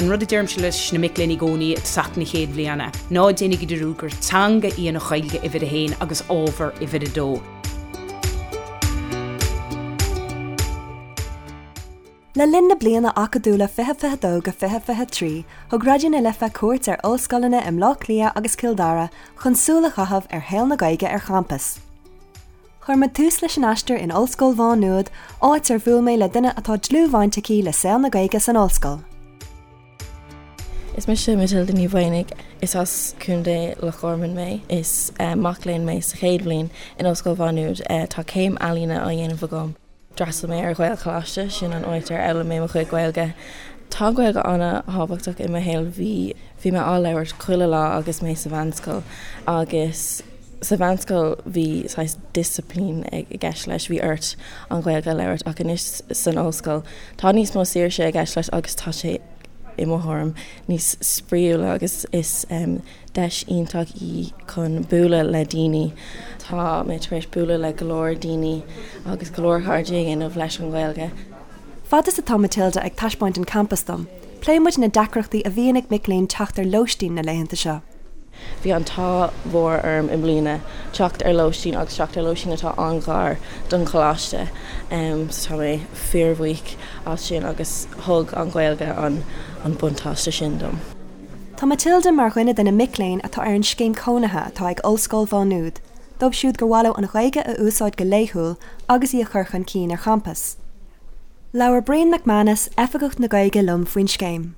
An rud a deirimse leis na mic léinn i gcónaí i dtosach na chéad bhliana, ná déanaigí dearúd gur teanga í an Ghaeilge uimhir a haon agus ábhar uimhir a dó. Le linn na bliana acadúla 2022-2023, thug Raidió na Life cuairt ar ollscoileanna i mBleá Cliath agus Cill Dara chun súil a chaitheamh ar shaol na Gaeilge ar champas. Chuir muid tús leis an aistear in Ollscoil Mhá Nuad, áit ar bhuail mé le duine atá dlúthbhaint aici le saol na Gaeilge san ollscoil. Is mise Matilda Ní Mhaonaigh. Is as Contae Loch Garman mé. Is mac léinn mé sa chéad bhliain in Ollscoil Mhá Nuad. Tá céim ealaíne á dhéanamh agam. D'fhreastail mé ar Ghaelcholáiste, sin an áit ar fhoghlaim mé mo chuid Gaeilge. Tá an Ghaeilge an-thábhachtach i mo shaol, bhí bhí mé á labhairt chuile lá agus mé sa mheánscoil agus sa mheánscoil bhí saghas disciplín i gceist leis, bhí ort an Ghaeilge a labhairt ach anois san ollscoil tá níos mó saoirse i gceist leis agus tá sé i mo thuairim níos spraíúla agus is deis iontach í chun bualadh le daoine. Tá mé tar éis bualadh le go leor daoine agus go leor cairde a dhéanamh leis an Ghaeilge. Fad is atá Matilda ag taispeáint an campas dom, pléann muid na deacrachtaí a bhíonn ag mic léinn teacht ar lóistín na laethanta seo. Bhí an t-ádh mhór orm i mbliana teacht ar lóistín agus teacht ar lóistín atá an-ghar don choláiste. So tá mé fíorbhuíoch as sin agus thug an Ghaeilge an buntáiste sin dom. Tá Matilda mar dhuine de na mic léinn atá ar an scéim cónaithe atá ag Ollscoil Mhá Nuad, dóibh siúd gur mhaith leo an Ghaeilge a úsáid go laethúil agus í a chur chun cinn ar champas. Labhair Brian McManus, Oifigeach na Gaeilge liom faoin scéim.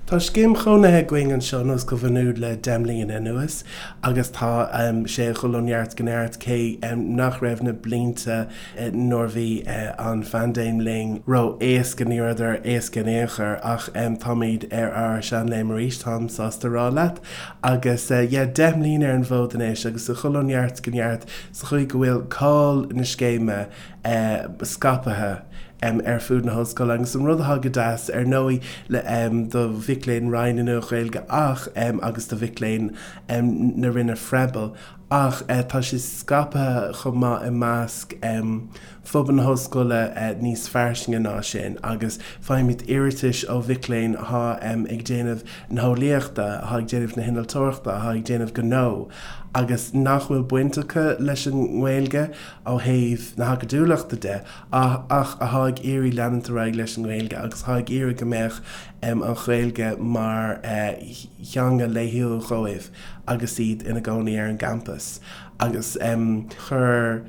Tá scéim chónaithe againn anseo in Ollscoil Mhá Nuad le 10 mbliana anuas agus tá sé ag dul ó neart go neart cé nach raibh na blianta nuair bhí an phaindéim linn ró-éasca, ní rabhadar éasca in aon chor, ach táimid ar ár seanléim arís, táim sásta a rá leat. Agus yeah, 10 mbliana ar an bhfód anois agus ag dul ó neart go neart sa chaoi go bhfuil cáil na scéime scaipthe ar fud na hollscoile. Agus an rud atá go deas, ar ndóigh, le do mhic léinn Roinn na Nua-Ghaeilge ach agus do mhic léinn na Roinne Froebel, Ach tá sé scaipthe chomh maith i measc phobal na hollscoile níos fairsinge ná sin agus faighimid iarratais ó mhic léinn atá ag déanamh na heolaíochta, atá ag déanamh na hinnealtóireachta, atá ag déanamh gnó agus nach bhfuil baint acu leis an nGaeilge ó thaobh na hacadúlachta de ach atá ag iarraidh leanúint ar aghaidh leis an nGaeilge agus atá ag iarraidh go mbeadh an Ghaeilge mar theanga laethúil dhóibh. agus iad ina gcónaí ar an gcampas agus chuir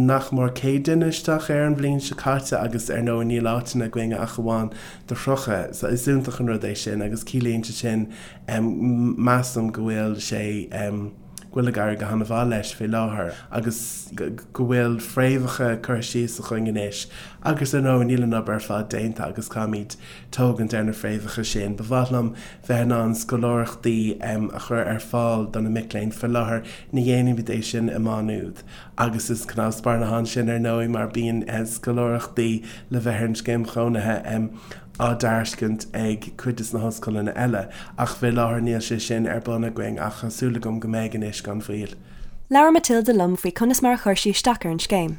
nach mór 100 duine isteach air an bhliain seo caite agus ar ndóigh níl áiteanna againn ach amháin do 30 so is iontach an rud é sin agus ciallaíonn sé sin measaim go bhfuil sé go bhfuil ag éirí go han-mhaith leis fé láthair agus go bhfuil fréamhacha curtha síos againn anois agus ar ndóigh níl an obair ar fad déanta agus caithfimid tógaint ar na fréamhacha sin. Ba mhaith liom bheith in ann scoláireachtaí a chur ar fáil do na mic léinn. Fé láthair ní dhéanaimid é sin i Má Nuad agus is cnámh spairne atá ansin ar ndóigh mar bíonn scoláireachtaí le bheith ar an scéim chónaithe á dtairiscint ag cuid de na hollscoileanna eile ach fé láthair níl sé sin ar bun againn ach tá súil agam go mbeidh anois gan mhoill. Labhair Matilda liom faoi conas mar a chuir sí isteach ar an scéim.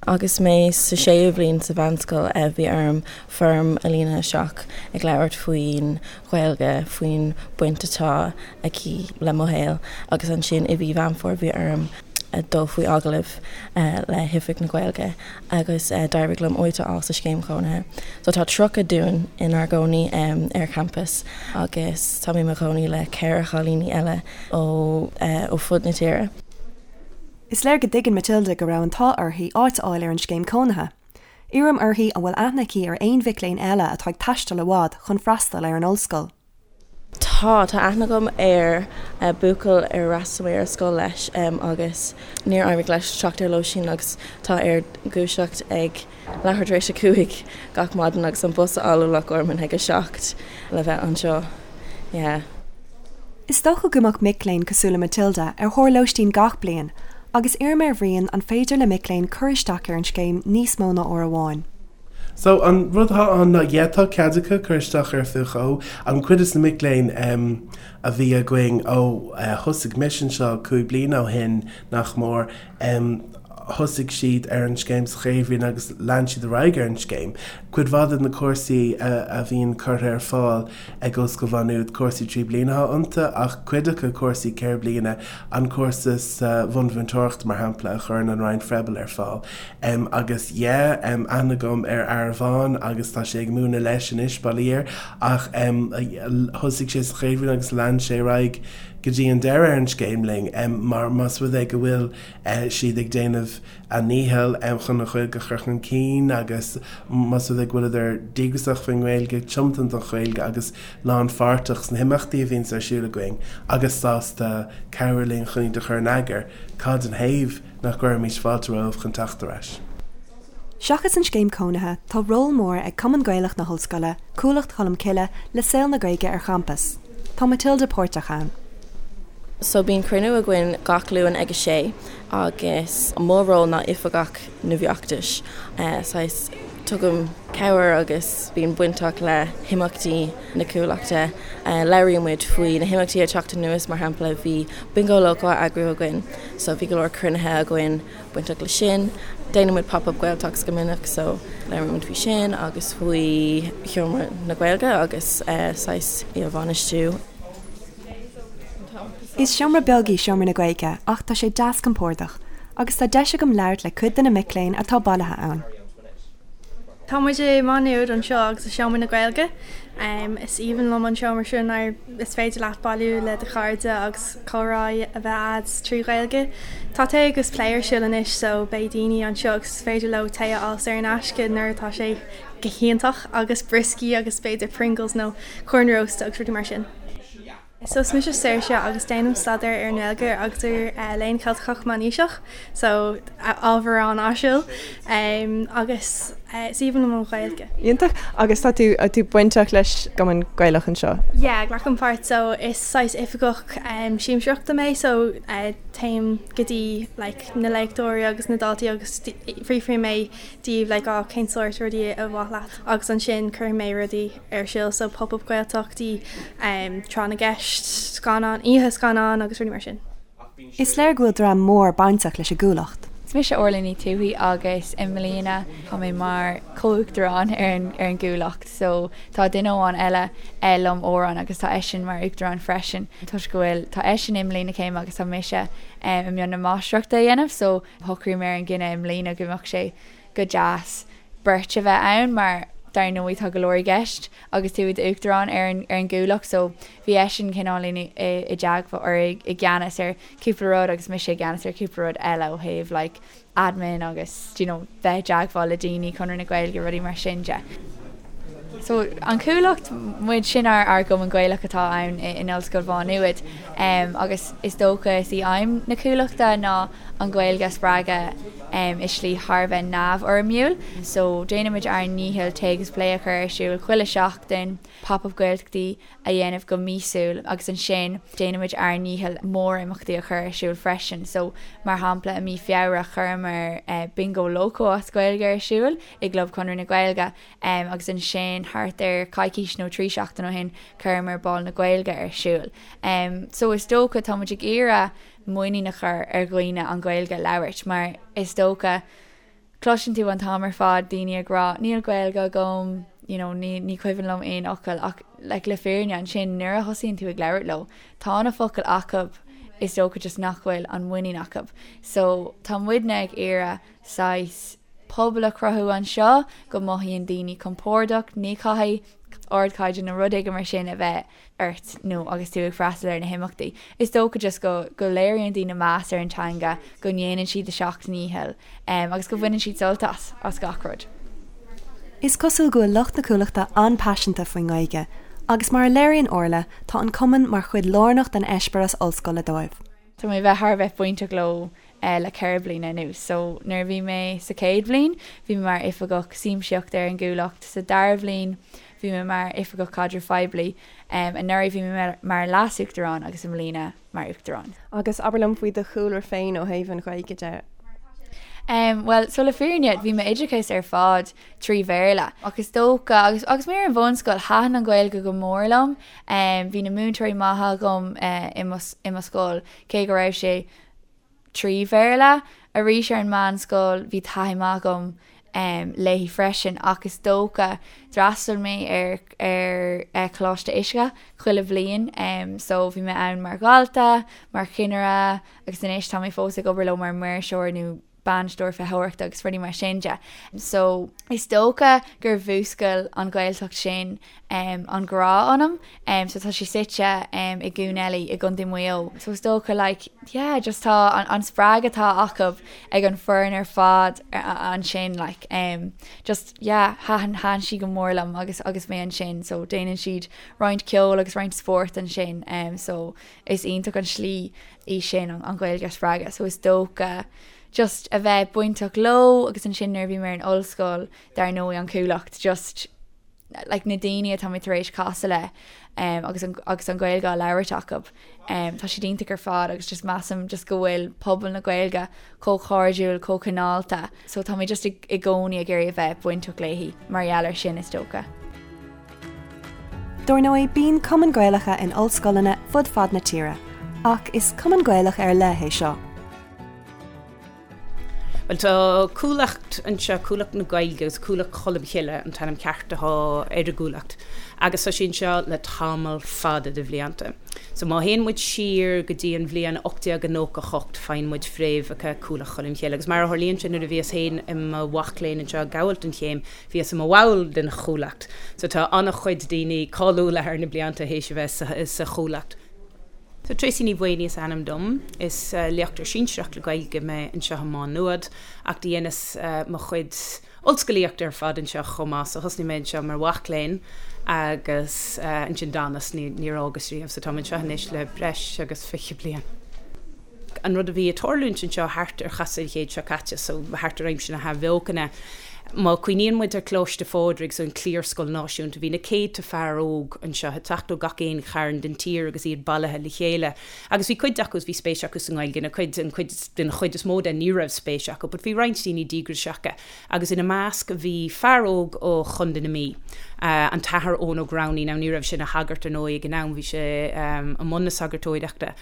Agus mé sa séú bhliain sa mheánscoil bhí orm foirm a líonadh isteach ag labhairt faoin Ghaeilge, faoin baint atá aici le mo shaol agus ansin i mhí Mheán Fómhair bhí orm dul faoi agallamh le hOifig na Gaeilge agus d'éirigh liom áit a fháil sa scéim chónaithe. So tá 30 dúinn inár gcónaí ar champas agus tá mé i mo chónaí le ceithre chailíní eile ó fud na tíre. Is léir go dtuigeann Matilda go raibh an t-ádh uirthi áit a fháil ar an scéim cónaithe. Iarraim uirthi an bhfuil aithne aici ar aon mhic léinn eile atá ag taisteal i bhfad chun freastal ar an ollscoil. Tá, tá aithne agam ar buachaill ar fhreastail mé ar scoil leis agus níor éirigh leis teacht ar lóistín agus tá air dúiseacht ag leathuair tar éis a 5 gach maidin agus an bus a fháil ó Loch Garman ag a 7 le bheith anseo. Yeah. Is dócha go mbeadh mic léinn cosúil le Matilda ar thóir lóistín gach bliain agus iarraim ar Bhrian an féidir le mic léinn cur isteach ar an scéim níos mó ná uair amháin. So, an rud atá ann ná, yeah, tá cead acu cur isteach air faoi dhó. An cuid de na mic léinn a bhí againn ó thosaigh mise anseo 5 bliana ó shin, nach mór. Thosaigh siad ar an scéim sa chéad bhliain agus lean siad ar aghaidh ar an scéim. Cuid mhaith de na cúrsaí a bhíonn curtha ar fáil ag Ollscoil Mhá Nuad, cúrsaí 3 bliana atá iontu ach cuid acu cúrsaí 4 bliana, an cúrsa sa bhunmhúinteoireacht mar shampla a chuireann an Roinn Froebel ar fáil. Agus yeah, aithne agam ar fhear amháin agus tá sé ag múineadh leis anois, bail ó Dhia air, ach thosaigh sé sa chéad bhliain agus lean sé ar aghaidh go dtí an deireadh ar an scéim linn mar más rud é go bhfuil siad ag déanamh a ndícheall chun an Ghaeilge a chur chun cinn agus más rud é go bhfuileadar díograiseach faoin nGaeilge, tiomanta don Ghaeilge agus lánpháirteach sna himeachtaí a bhíonns ar siúl againn agus sásta cabhrú linn chun iad a chur in eagar, cad ina thaobh nach gcuirfimis fáilte romhaibh chun teacht ar ais? Seachas an scéim cónaithe, tá ról mór ag Cumann Gaelach na hOllscoile, Cuallacht Cholm Cille, le saol na Gaeilge ar champas. Tá Matilda páirteach ann. So bíonn cruinniú againn gach Luan ag a sé agus mo ról ná oifigeach na bhfeachtais. Saghas tugaim cabhair agus bím bainteach le himeachtaí na Cuallachta. Labhraíonn muid faoi na himeachtaí ag teacht anuas, mar shampla bhí Bingo Loco á eagrú againn so bhí go leor cruinnithe againn bainteach le sin. Déanann muid Pop Up Gaeltachts go minic so labhraíonn muid faoi sin agus faoi Sheomra na Gaeilge agus saghas í a bhainistiú. Is seomra beag í Seomra na Gaeilge ach tá sé deas compordach agus tá deis agam labhairt le cuid de na mic léinn atá bailithe ann. Tá muid i Má Nuad anseo agus i Seomra na Gaeilge. Is aoibhinn liom an seomra seo mar is féidir leat bailiú le do chairde agus comhrá a bheith a'd trí Ghaeilge. Tá tae agus plé ar siúl anois so beidh daoine anseo agus is féidir leo tae a fháil saor in aisce nuair atá sé go hiontach agus brioscaí agus b'fhéidir Pringles nó corn rósta agus rudaí mar sin. So is mise Saoirse agus déanaim staidéar ar an nGaeilge agus ar Léann Ceilteach Meánaoiseach, so ábhar an-áisiúil agus is aoibhinn liom an Ghaeilge. Iontach. Agus tá tú tú bainteach leis an gCumann Gaelach anseo? Yeah, glacaim páirt. So is saghas oifigeach siamsaíochta mé so téim go dtí like na léachtóirí agus na daltaí agus fiafraíonn mé díobh like oh cén sórt rudaí ar mhaith leat agus ansin cuirfidh mé rudaí ar siúl so Pop Up Gaeltachtaí, Tráth na gCeist, scannán, oíche scannán agus rudaí mar sin. Is léir go bhfuil dream mór bainteach leis an gCuallacht. Is mise Orla Ní Tuathaigh agus i mbliana tá mé mar chomh-uachtarán ar an ar an gCuallacht so tá duine amháin eile liom, Odhrán, agus tá eisean mar uachtarán freisin toisc go bhfuil tá eisean i mbliain na céime agus tá mise i mbun na máistreachta a dhéanamh so shocraigh mé ar an gcinneadh i mbliana go mbeadh sé go deas beirt a bheith ann mar dar ndóigh tá go leor i gceist agus tú i d'uachtarán ar an ar an gCuallacht so bhí eisean cineáilín i i dteagmháil or i i gceannas ar cúpla rud agus mise i gceannas ar cúpla rud eile ó thaobh like admin agus do you know bheith i dteagmháil le daoine, Conradh na Gaeilge, rudaí mar sin de. So an Chuallacht, muid, sin ár ár gcumann Gaelach atá ann in Ollscoil Mhá Nuad agus is dócha is í aidhm na Cuallachta ná an Ghaeilge a spreagadh i slí thar a bheith neamhfhoirmiúil. So déanaimid ár ndícheall tae agus plé a chur ar siúl chuile seachtain, pop up Gaeltachtaí a dhéanamh go míosúil agus ansin déanaimid ár ndícheall mórimeachtaí a chur ar siúl freisin. So mar shampla i mí Feabhra chuireamar Bingo Loco as Gaeilge ar siúl i gClub Chonradh na Gaeilge. Agus ansin thart ar coicís nó 3 seachtain ó shin chuireamar Bál na Gaeilge ar siúl. So is dócha tá muid ag iarraidh muinín a chur ar dhaoine an Ghaeilge a labhairt mar is dócha cloiseann tú an t-am ar fad daoine ag rá níl Gaeilge agam, you know, ní, ní cuimhin liom aon fhocal ach like, le fírinne ansin nuair a thosaíonn tú ag labhairt leo tá na focail acu is dócha just nach bhfuil an muinín acu. So tá muidne ag iarraidh saghas pobal a chruthú anseo go mothaíonn daoine compordach, ní chaithfidh ardchaighdeán nó rud éigin mar sin a bheith ort nó agus tú ag freastal ar na himeachtaí. Is dócha just go go léiríonn daoine meas ar an teanga, go ndéanann siad a seacht ndícheall agus go bhaineann siad sult as, as gach rud. Is cosúil go bhfuil lucht na Cuallachta an-paiseanta faoin nGaeilge agus mar a léiríonn Orla, tá an cumann mar chuid lárnach den eispéireas ollscoile dóibh. Tá mé a bheith thar a bheith bainteach leo le 4 bliana anuas. So nuair a bhí mé sa chéad bhliain bhí mé mar oifigeach siamsaíochta ar an gCuallacht, sa dara bhliain bhí mé mar oifigeach caidrimh phoiblí, anuraidh bhí mé mar leas-uachtarán agus i mbliana mar uachtarán. Agus abair liom faoi do chúlra féin ó thaobh an Ghaeilge de. Bhuel, so le fírinne bhí m'oideachas ar fad trí Bhéarla ach is dócha, agus agus mé ar an bhunscoil, thaitin an Ghaeilge go mór liom. Bhí na múinteoirí maithe agam i mo i mo scoil, cé go raibh sé. 3 Bhéarla. Arís ar an meánscoil bhí taithí maith agam léi freisin ach is dócha d'fhreastail mé ar ar Choláiste Uisce chuile bhliain so bhí mé ann mar dhalta, mar chinnire agus anois tá mé fós ag obair leo mar maoirseoir nó bainisteoir feitheoireachta agus rudaí mar sin de. So is dócha gur mhúscail an Ghaeltacht sin an grá ionam. So tá sé suite i gCuan Eilí i gContae Mhaigh Eo. So is dócha like yeah just tá an spreagadh atá acu ag an foireann ar fad ansin like just yeah thaitin thaitin sí go mór liom agus agus mé ansin so déanann siad roinnt ceoil agus roinnt spóirt ansin so is iontach an slí í sin an Ghaeilge a spreagadh so is dócha just a bheith bainteach leo agus ansin nuair a bhí mé ar an ollscoil dar ndóigh an Chuallacht just like na daoine atá mé tar éis casadh le um, agus an, agus an Ghaeilge á labhairt acu um, tá siad iontach ar fad agus just measaim just go bhfuil pobal na Gaeilge chomh cairdiúil chomh cineálta so tá mé just i, i gcónaí ag iarraidh a bheith bainteach léi mar gheall ar sin is dócha. Dár ndóigh, bíonn cumainn Gaelacha in ollscoileanna fud fad na tíre, ach is cumann Gaelach ar leith é seo. Bhuel, tá Cuallacht anseo, Cuallacht na Gaeilge agus Cuallacht Cholm Chille an t-ainm ceart atá ar an gCuallacht, agus tá sé anseo le tamall fada de bhlianta. So má théann muid siar go dtí an bhliain 1898 faigheann muid fréamhacha Cuallacht Cholm Chille. Agus mar a tharlaíonn sé nuair a bhíos féin i mo mhac léinn anseo ag gabháil don chéim, bhíos i mo bhall den Chuallacht. So tá an-chuid daoine cáiliúla thar na blianta théis a bheith sa Chuallacht. So Tracey Ní Mhaonaigh is ainm dom. Is léachtóir sinsearach le Gaeilge mé anseo i Má Nuad ach do dheineas mo chuid ollscolaíochta ar fad anseo chomh maith. So thosnaigh mé anseo mar mhac léinn agus ansin d'fhanas, níor fhágas riamh. So táim anseo anois le breis agus 20 bliain. An rud a bhí ag tarlúint anseo thart ar chasadh an chéid seo caite, so thart ar aimsir na hAthbheochana, Má cuimhníonn muid ar Coláiste Phádraig, so an cliarscoil náisiúnta, bhí na céadta fear óg anseo ag teacht ó gach aon chearn den tír agus iad bailithe le chéile. Agus bhí cuid acu, bhí spéis acu sa nGaeilge, na cuid, an cuid, den chuid is mó de ní raibh spéis acu, but bhí roinnt daoine díograiseacha. Agus ina measc bhí fear óg ó Chontae na Mí, an tAthair Eoin Ó Gramhnaigh. Now ní raibh sé ina shagart ar ndóigh ag an am, bhí sé i mbun na sagartóireachta.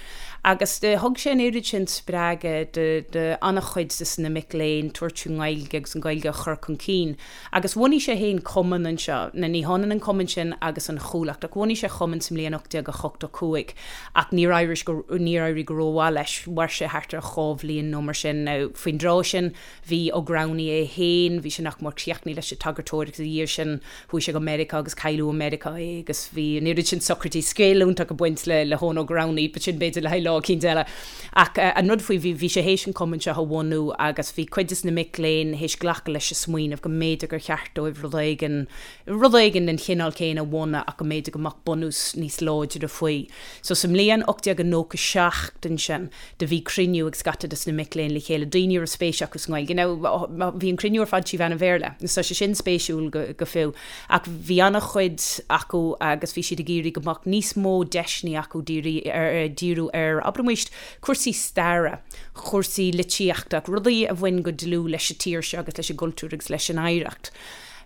Agus thug sé an oiread sin spreagadh do an-chuid de na mic léinn tabhairt faoin nGaeilge agus an Ghaeilge a chur chun cinn. Agus bhunaigh sé féin cumann anseo. Now ní hionann an cumann sin agus an Chuallacht ach bhunaigh sé cumann sa mbliain 1885 ach níor éirigh go, níor éirigh go rómhaith leis. Mhair sé thart ar dhá bhliain nó mar sin. Now faoin dtráth sin Bhí Ó Gramhnaigh é féin, bhí sé nach mór críochnaithe leis an tsagartóireacht ina dhiaidh sin, chuaigh sé go Meiriceá agus cailleadh i Meiriceá é agus bhí an oiread sin socraidí scéal iontach ag baint le le hEoin Ó Gramhnaigh, but sin b'fhéidir le haghaidh lá eicínt eile. Ach an rud faoi, bhí bhí sé théis an cumann seo a bhunú agus bhí cuid des na mic léinn théis glacadh leis an smaoineamh go mb'fhéidir gur cheart dóibh rud éigin, rud éigin den chineál céanna a bhunú ach go mb'fhéidir go mbeadh bunús níos láidre faoi. So sa mbliain 1897 ansin, do bhí cruinniú ag scata des na mic léinn le chéile, daoine a raibh spéis acu sa nGaeilge. Now, bhí an cruinniú ar fad trí mheán an Bhéarla, so tá sé sin spéisiúil go, go fiú. Ach bhí an-chuid acu agus bhí siad ag iarraidh go mbeadh níos mó deiseanna acu dírí ar, díriú ar, abraimis, cúrsaí staire, cúrsaí litríochta, rudaí a bhain go dlúth leis an tír seo agus leis an gcultúr agus leis an oidhreacht.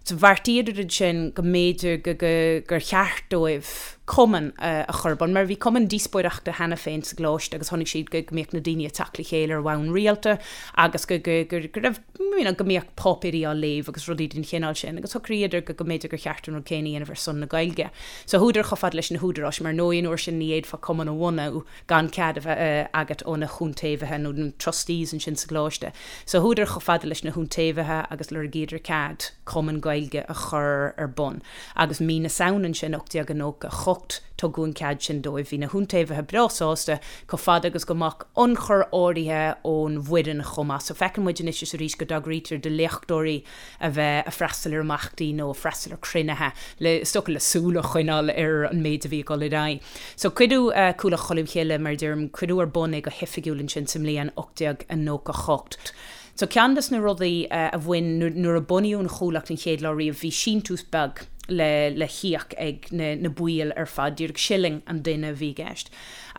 So bheartaíodar ansin go mb'fhéidir go, go, gur cheart dóibh cumann a chur ar bun, mar bhí cumann díospóireachta cheana féin sa gcoláiste agus chonaic siad go, go mbíodh na daoine ag teacht le chéile ar bhonn rialta agus go, go, go, go raibh, you know, go mbíodh páipéirí á léamh agus rudaí den chineál sin agus shocraíodar go, go mb'fhéidir gur cheart an rud céanna a dhéanamh ar son na Gaeilge. So chuadar chomh fada leis na húdaráis, mar ar ndóigh an uair sin ní fhéadfá cumann a bhunú gan cead a bheith agat ó na hiontaobhaithe nó na trustees ansin sa gcoláiste. So chuadar chomh fada leis na hiontaobhaithe agus lorgaíodar cead cumann Gaeilge a chur ar bun. Agus mí na Samhna ansin 1898 tugadh an cead sin dóibh. Bhí na hiontaobhaithe breá sásta chomh fada agus go mbeadh ionchur áirithe ón bhfoireann chomh maith. So feiceann muid anois is arís go dtagraítear do léachtóirí a bheith ag freastal ar imeachtaí nó ag freastal ar cruinnithe le, is dócha, le súil a choinneáil ar an méid a bhí ag dul ar aghaidh. So cuireadh Cuallacht Cholm Chille, mar a deirim, cuireadh ar bun é go hoifigiúil ansin sa mbliain 1898. So ceann des na rudaí a bhain, nuair a bunaíodh an Chuallacht an chéad lá riamh, bhí síntiús beag le le híoc ag na na baill ar fad, díreach shilling an duine a bhí i gceist.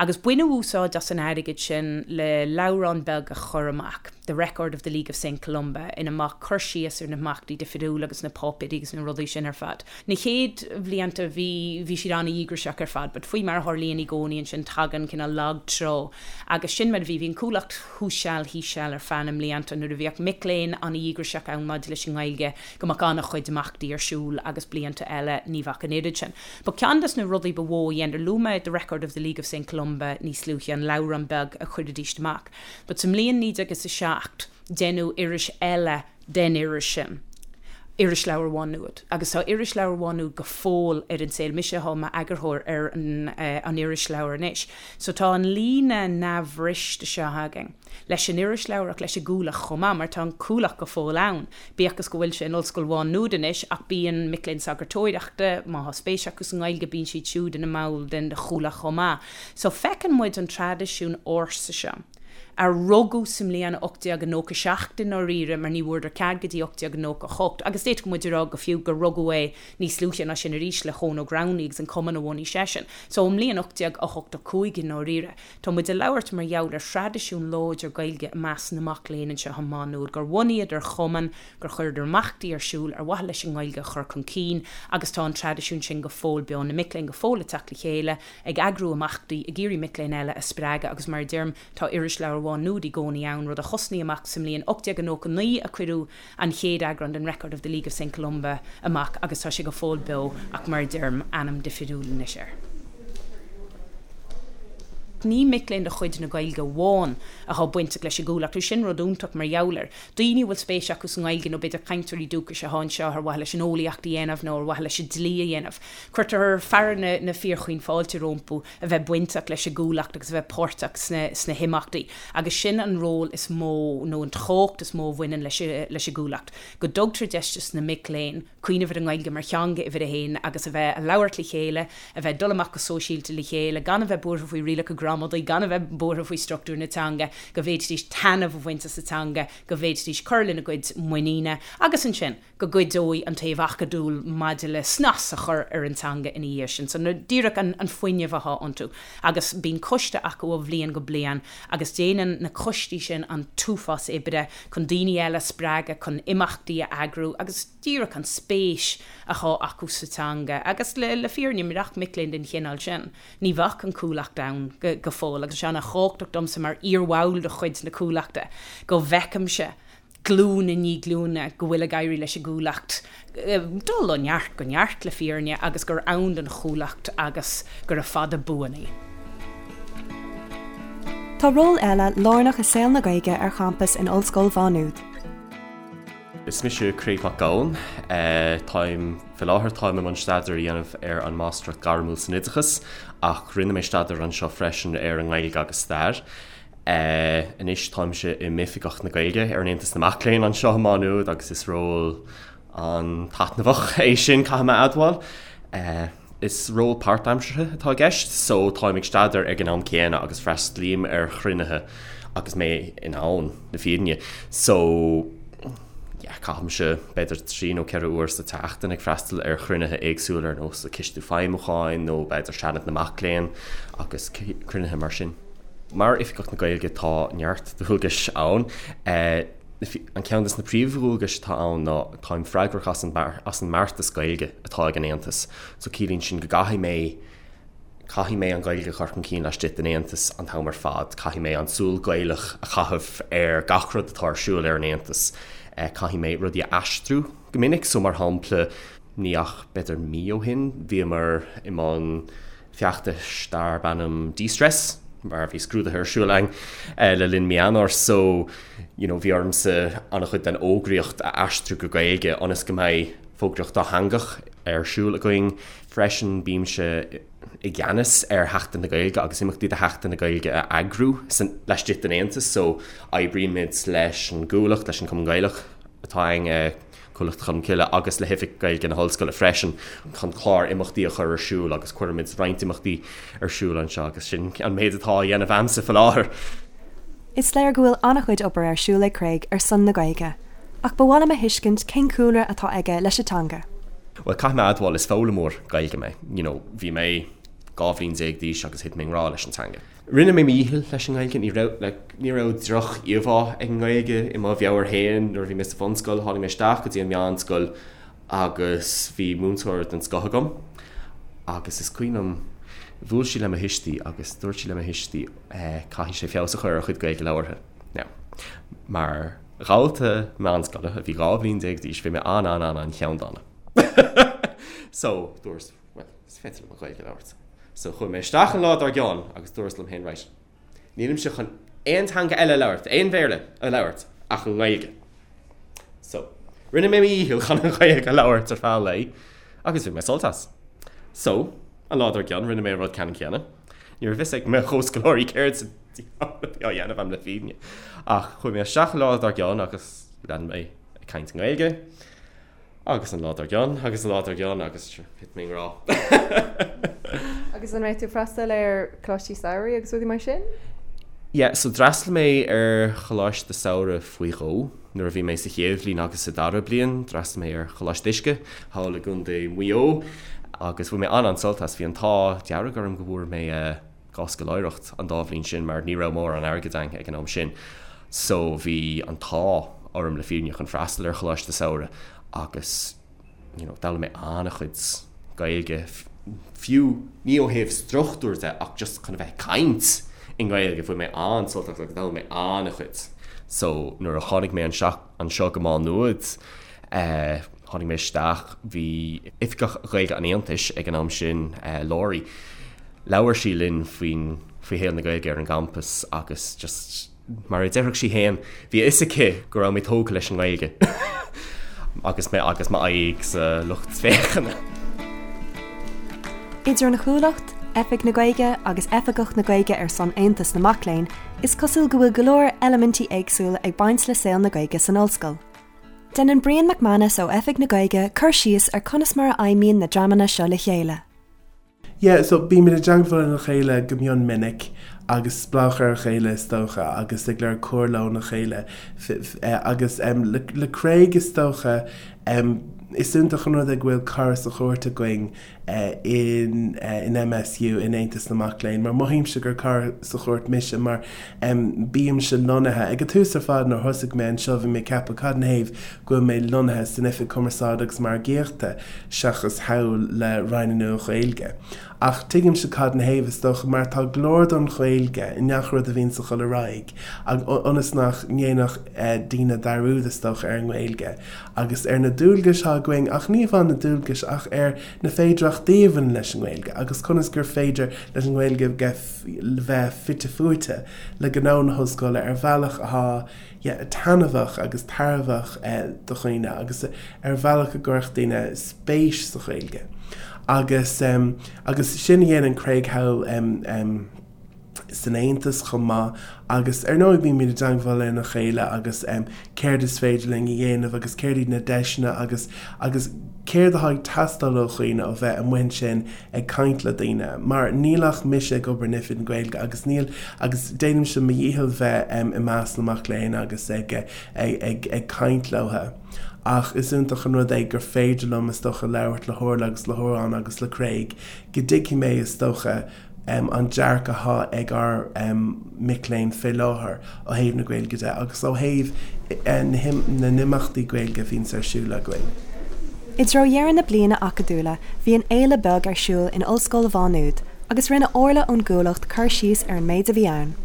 Agus baineadh úsáid as an airgead sin le leabhrán beag a chur amach, The Record of the League of Saint Columba, ina mbeadh cur síos ar na himeachtaí difriúla agus na páipéirí agus na rudaí sin ar fad. Na chéad bhlianta bhí, bhí siad an-dhíograiseach ar fad, but faoi mar a tharlaíonn i gcónaí ansin tagann cineál lag trá agus sin mar a bhí, bhí an Chuallacht thuas seal thíos seal ar feadh na mblianta nuair a bhíodh mic léinn an-dhíograiseach ann maidir leis an nGaeilge go mbeadh an-chuid imeachtaí ar siúl agus blianta eile ní bheadh an oiread sin. But ceann des na rudaí ba mhó a dheineadar, luaigh mé The Record of the League of Saint Columba níos luaithe, an leabhrán beag a chuiridíst amach. But sa mbliain 1907 deineadh iris eile den iris sin, Irisleabhar Mhá Nuad. Agus tá Irisleabhar Mhá Nuad go fóill ar an saol. Mise atá i m'eagarthóir ar an irisleabhar anois. So tá an líne neamhbhriste seo againn leis an irisleabhar ach leis an gCuallacht chomh maith, mar tá an Cuallacht go fóill ann, bíodh is go bhfuil sé in Ollscoil Mhá Nuad anois, ach bíonn mic léinn sagartóireachta, má tá spéis acu sa nGaeilge, bíonn siad siúd ina mball den Chuallacht chomh maith. So feiceann muid an traidisiún ársa seo, a rugadh sa mbliain 1897 i ndáiríre, mar ní bhfuaireadar cead go dtí 1898, agus d'fhéadfadh muid a rá go fiú gur rugadh é níos luaithe ná sin arís le hEoin Ó Gramhnaigh agus an cumann a bhunaigh seisean. So ón mbliain 1885 i ndáiríre, tá muid ag labhairt mar gheall ar thraidisiún láidir Gaeilge i measc na mac léinn anseo i Má Nuad, gur bhunaíodar cumann, gur chuireadar imeachtaí ar siúl ar mhaithe leis an nGaeilge a chur chun cinn agus tá an traidisiún sin go fóill beo, na mic léinn go fóill ag teacht le chéile, ag eagrú imeachtaí, ag iarraidh mic léinn eile a spreagadh agus mar a deirim, tá Irisleabhar Mhá Nuad i gcónaí ann, rud a thosnaigh amach sa mbliain 1899 a cuireadh an chéad eagrán den Record of the League of Saint Columba amach agus tá sé go fóill beo ach mar a deirim, ainm difriúil anois air. Ní mic léinn de chuid na Gaeilge amháin atá bainteach leis an gCuallacht, agus sin rud iontach mar gheall air. Daoine a bhfuil spéis acu sa nGaeilge nó b'fhéidir cainteoirí dúchais atá anseo ar mhaithe leis an eolaíocht a dhéanamh nó ar mhaithe leis an dlí a dhéanamh. Cuirtear fearadh na fíorchaoin fáilte rompu a bheith bainteach leis an gCuallacht agus a bheith páirteach sna himeachtaí agus sin an ról is mó nó an tábhacht is mó a bhaineann leis an gCuallacht, go dtugtar deis dos na mic léinn cuimhneamh ar an nGaeilge mar theanga uimhir a haon agus a bheith a labhairt le chéile, a bheith ag dul amach go sóisialta le chéile, gan a bheith buartha faoi rialacha gramadaí, gan a bheith buartha faoi struchtúr na teanga, go bhféadfaidís taitneamh a bhaint as an teanga, go bhféadfaidís cur lena gcuid muiníne agus ansin. go gcuideoidh an taobh acadúil maidir le snas a chur ar an teanga ina dhiaidh sin. So díreach an fuinneamh atá iontu. Agus bíonn coiste acu ó bhliain go bliain agus déanann na coistí sin an t-uafás oibre chun daoine eile a spreagadh chun imeachtaí a eagrú agus díreach an spéis atá acu sa teanga. Agus le fírinne, murach mic léinn den chineál sin, ní bheadh an Chuallacht ann go fóill. Agus tá sé an-thábhachtach domsa mar iarbhall de chuid na Cuallachta go bhfeicimse glúin i ndiaidh glúine go bhfuil ag éirí leis an gCuallacht dul ó neart go neart, le fírinne, agus gur ann don Chuallacht agus gura fada buan í. Tá ról eile lárnach i saol na Gaeilge ar champas in Ollscoil Mhá Nuad. Is mise Craig Mac Gabhann. Táim, faoi láthair táim i mbun staidéar a dhéanamh ar an Máistreacht Ghairmiúil san Oideachas ach rinne mé staidéar anseo freisin ar an nGaeilge agus Stair. Anois táimse i m'Oifigeach na Gaeilge ar an Aontas na Mac Léinn anseo i Má Nuad agus is ról an-taitneamhach é sin, caithfidh mé a admháil. Is ról páirtaimseartha atá i gceist so táim ag staidéar ag an am céanna agus freastalaím ar chruinnithe agus mé in ann, le fírinne. So yeah, caithimse b'fhéidir 3 nó 4 uair sa tseachtain ag freastal ar chruinnithe éagsúla ar nós an Coiste Feidhmiúcháin nó b'fhéidir Seanad na Mac Léinn agus cruinnithe mar sin. Mar Oifigeach na Gaeilge tá neart dualgais ann. An ceann de na príomhdhualgais atá ann ná táim freagrach as an as an mbeartas Gaeilge atá ag an Aontas. So ciallaíonn sin go gcaithfidh mé caithfidh mé an Ghaeilge a chur chun cinn laistigh den Aontas an t-am ar fad, caithfidh mé an tsúil Ghaelach a chaitheamh ar gach rud atá ar siúl ar an Aontas, caithfidh mé rudaí a aistriú go minic, so mar shampla ní ach b'fhéidir mí ó shin bhíomar i mbun feachtais darb ainm De-Stress mar bhí scrúduithe ar siúl againn le linn mí Eanáir so you know bhí ormsa an-chuid den fhógraíocht a aistriú go Gaeilge ionas go mbeidh fógraíocht dátheangach ar siúl againn. Freisin bímse i gceannas ar Sheachtain na Gaeilge agus imeachtaí do Sheachtain na Gaeilge a eagrú laistigh den Aontas so oibrímid leis an gCuallacht, leis an Cumann Gaelach atá againn, Cuallacht Cholmcille agus le hOifig Gaeilge na hOllscoile freisin chun clár imeachtaí a chur ar siúl agus cuirimid roinnt imeachtaí ar siúl anseo agus sin an méid atá á dhéanamh a'msa faoi láthair. Is léir go bhfuil an-chuid obair ar siúl ag Craig ar son na Gaeilge, ach ba mhaith liom a thuiscint cén cúlra atá aige leis an teanga. Bhuel, caithfidh mé a admháil, is foghlaimeoir Gaeilge mé. You know, bhí mé. 12 bhliain d'aois agus thit mé i ngrá leis an teanga. Rinne mé mo dhícheall leis an nGaeilge, ní raibh, like, ní raibh droch-íomhá ag an nGaeilge i mo mheabhair féin nuair a bhí mé sa bhunscoil. Tháinig mé isteach go dtí an meánscoil agus bhí múinteoir den scoth agam agus is cuimhin liom, bhuail sí le mo thuistí agus dúirt sí le mo thuistí, eh, caithfidh sé feabhas a chur ar a chuid Gaeilge labhartha. Now, mar dhalta meánscoile a bhí 12 bhliain d'aois, bhí mé an-an-an-an-cheanndána. So, dúras, bhuel, is féidir liom an Ghaeilge a labhairt. So, chuaigh mé isteach an lá dár gcionn agus dúras liom féin, right, nílimse chun aon teanga eile a labhairt, aon Bhéarla a labhairt ach an Ghaeilge. So, rinne mé mo dhícheall chun an Ghaeilge a labhairt ar feadh an lae agus bhain mé sult as. So, an lá dár gcionn, rinne mé an rud ceannann céanna. Ní raibh fhios ag mo chomhscoláirí céard sa diabhal a bhí á dhéanamh agam le fírinne. Ach chuaigh mé isteach an lá dár gcionn agus lean mé ag caint i nGaeilge. Agus an lá dár gcionn, agus an lá dár gcionn, agus thit mé i ngrá. Agus an raibh tú ag freastal ar choláistí samhraidh agus rudaí mar sin? Yeah, so d'fhreastail mé ar choláiste samhraidh faoi dhó nuair a bhí mé sa chéad bhliain agus sa dara bliain. D'fhreastail mé ar Choláiste Uisce thall i gContae Mhaigh Eo agus bhain mé an-an-sult as. Bhí an t-ádh dearg orm go bhfuair mé 2 scoláireacht an dá bhliain sin mar ní raibh mórán airgid againn ag an am sin so bhí an t-ádh orm le fírinne chun freastal ar choláiste samhraidh agus you know d'fhoghlaim mé an-chuid Gaeilge fiú ní ó thaobh struchtúr de ach just chun a bheith ag caint i nGaeilge bhain mé an-sult as agus d'fhoghlaim mé an-chuid so nuair a tháinig mé anseo go Má Nuad eh Tháinig mé isteach, bhí Oifigeach Gaeilge an Aontais ag an am sin, Laurie, labhair sí linn faoin, faoi shaol na Gaeilge ar an gcampas agus just, mar a déarfadh sí féin, bhí a fhios aici go raibh mé tógtha leis an nGaeilge agus mé agus m'aghaidh sa lucht féachana. Idir an Chuallacht, Oifig na Gaeilge agus Oifigeach na Gaeilge ar son Aontas na Mac Léinn, is cosúil go bhfuil go leor eilimintí éagsúla ag baint le saol na Gaeilge san ollscoil. Déanann Brian McManus ó Oifig na Gaeilge cur síos ar conas mar a fheidhmíonn na dreamanna seo le chéile. Yeah, so bímid i dteagmháil lena chéile go mion minic agus spleách ar a chéile is dócha agus ag lorg comhairle óna chéile agus le Craig is dócha is iontach an rud é go bhfuil cara sa chúirt againn in in MSU, in Aontas na Mac Léinn, mar mothaímse gur cara sa chúirt mise mar bímse lonnaithe, ag an tús ar fad nuair thosaigh mé anseo bhí mé ag ceapadh cad ina thaobh go bhfuil mé lonnaithe san Oifig Cumarsáide agus Margaíochta seachas thall le Roinn na Nua-Ghaeilge. Ach tuigimse cad ina thaobh is dócha mar tá glór don Ghaeilge i ngach rud a bhíonns ag dul ar aghaidh ionas nach ndéanfadh daoine dearúd is dócha ar an nGaeilge. agus ar na dualgais atá againn, ach ní amháin na dualgais, ach ar na féidearthachtaí a bhaineann leis an nGaeilge agus conas gur féidir leis an nGaeilge bheith fite fuaite le gnó na hollscoile ar bhealach atá yeah taitneamhach agus tairbheach do dhaoine agus ar bhealach a gcuirfeadh daoine spéis sa Ghaeilge. Agus agus sin a dhéanann Craig thall san Aontas chomh maith agus ar ndóigh bímid i dteagmháil lena chéile agus céard is féidir linn a dhéanamh agus céard iad na deiseanna agus agus céard atá ag teastáil ó dhaoine ó bheith amuigh ansin ag caint le daoine mar níl ach mise ag obair in Oifig na Gaeilge agus níl agus déanaimse mo dhícheall bheith i measc na mac léinn agus ag ag ag ag caint leo. Ach is iontach an rud é gur féidir liom is dócha labhairt le hOrla agus le hOrán agus le Craig go dtuigfidh mé is dócha an dearcadh atá ag ár mic léinn fé láthair ó thaobh na Gaeilge de agus ó thaobh na n-imeachtaí Gaeilge a bhíonns ar siúl againn. I dtreo dheireadh na bliana acadúla bhí an fhéile beag ar siúl in Ollscoil Mhá Nuad agus rinne Orla ón gCuallacht cur síos ar an méid a bhí ann.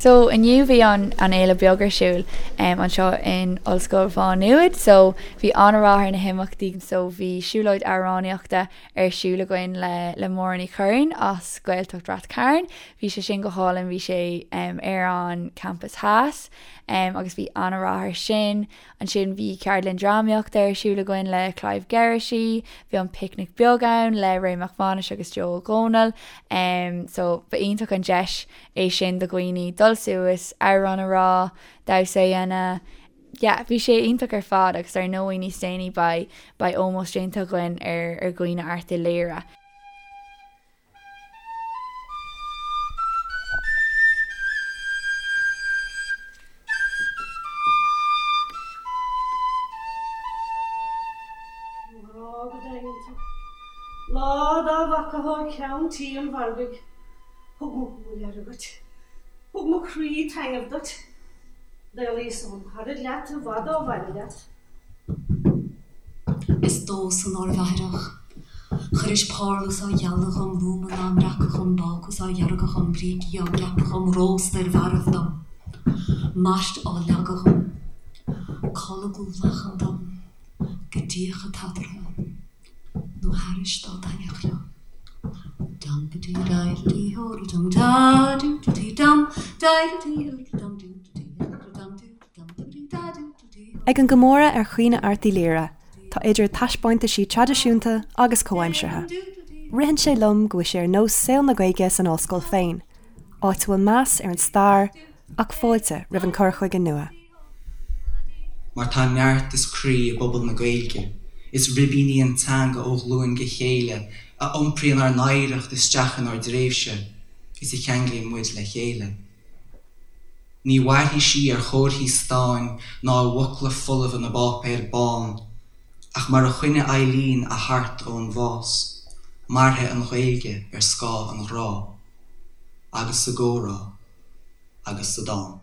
So inniu bhí an an fhéile beag ar siúl anseo in Ollscoil Mhá Nuad so bhí an-rath ar na himeachtaí so bhí siúlóid amhránaíochta ar siúl againn le le Máire Ní Churraoin as Gaeltacht Rath Cairn. Bhí sé sin go hálainn, bhí sé ar an Campus Theas agus bhí an-rath air sin. Ansin bhí ceardlann drámaíochta ar siúl againn le Clive Geraghty, bhí an picnic beag ann le Ray Mac Mánais agus Joe Ó Dónaill. So ba iontach an deis é sin do dhaoine dul suas, amhrán a rá, damhsa a dhéanamh, yeah, bhí sé iontach ar fad agus ar ndóigh níos déanaí beidh, beidh ómós déanta againn ar, ar dhaoine Airt Uí Laoghaire. Mo ghrá go daingean tú. Lá dá bhfaca. acu ag ceann tí an mhargaidh. Thug mo shúil aire dhuit. Thug mo chroí taitneamh duit. D'éalaíos óm charaid leat i bhfad ó bhaile leat. Is domhsa nárbh aithreach. Chuiris parlús á ghealadh dhom, lúmanna á mbreacadh dhom, bácús á dheargadh dhom, brící á gceapadh dhom, rósta ar mharbh dom, mairt á leagadh dhom, colgadh lachan dom, go dtíocfadh tatartha nó thairis dá dtaitneodh leo. Dum ba dee dai da dee ho da dum da doo da dee dum dai da dee ho da dum doo da dee ho da dum doo da dum da dee da doo da dee. Ag an gcomóradh ar Chaoineadh Airt Uí Laoghaire, tá idir taispeántaisí traidisiúnta agus comhaimseartha. Ritheann sé liom go bhfuil sé ar nós saol na Gaeilge san ollscoil féin, áit a bhfuil meas ar an stair ach fáilte roimh an cur chuige nua. Mar tá neart is croí i bpobal na Gaeilge, is ribín í an teanga ó ghlúin go chéile a iompraíonn ár n-oidhreacht isteach inár dtréimhse is a cheanglaíonn muid le chéile. Ní mhairfidh sí ar chomharthaí stáin ná i bhfocla folmha na bpáipéar bán, ach mar a choinnigh Eileen a hArt ón bhás, mairfidh an Ghaeilge ar scáth an ghrá, agus sa gcomhrá, agus sa dán.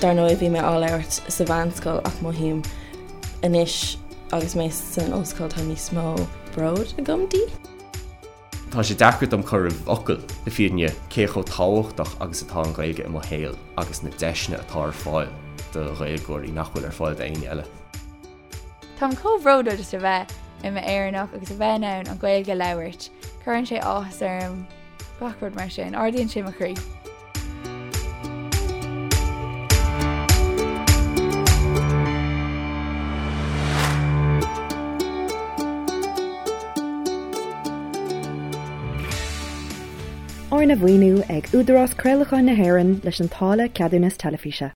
Dar ndóigh bhí mé á labhairt sa mheánscoil ach mothaím anois agus mé san ollscoil tá níos mó bród agam di. Tá sé deacair dom cur i bhfocail, le fírinne, cé chomh tábhachtach agus atá an Ghaeilge i mo shaol agus na deiseanna atá ar fáil do Ghaeilgeoirí nach bhfuil ar fáil d'éinne eile. Táim chomh bródúil just a bheith i m'Éireannach agus a bheith in ann an Ghaeilge a labhairt. Cuireann sé áthas orm, gach rud mar sin. Ardaíonn sé mo chroí. Arna mhaoiniú ag Údarás Craolacháin na hÉireann leis an táille Ceadúnas Teilifíse.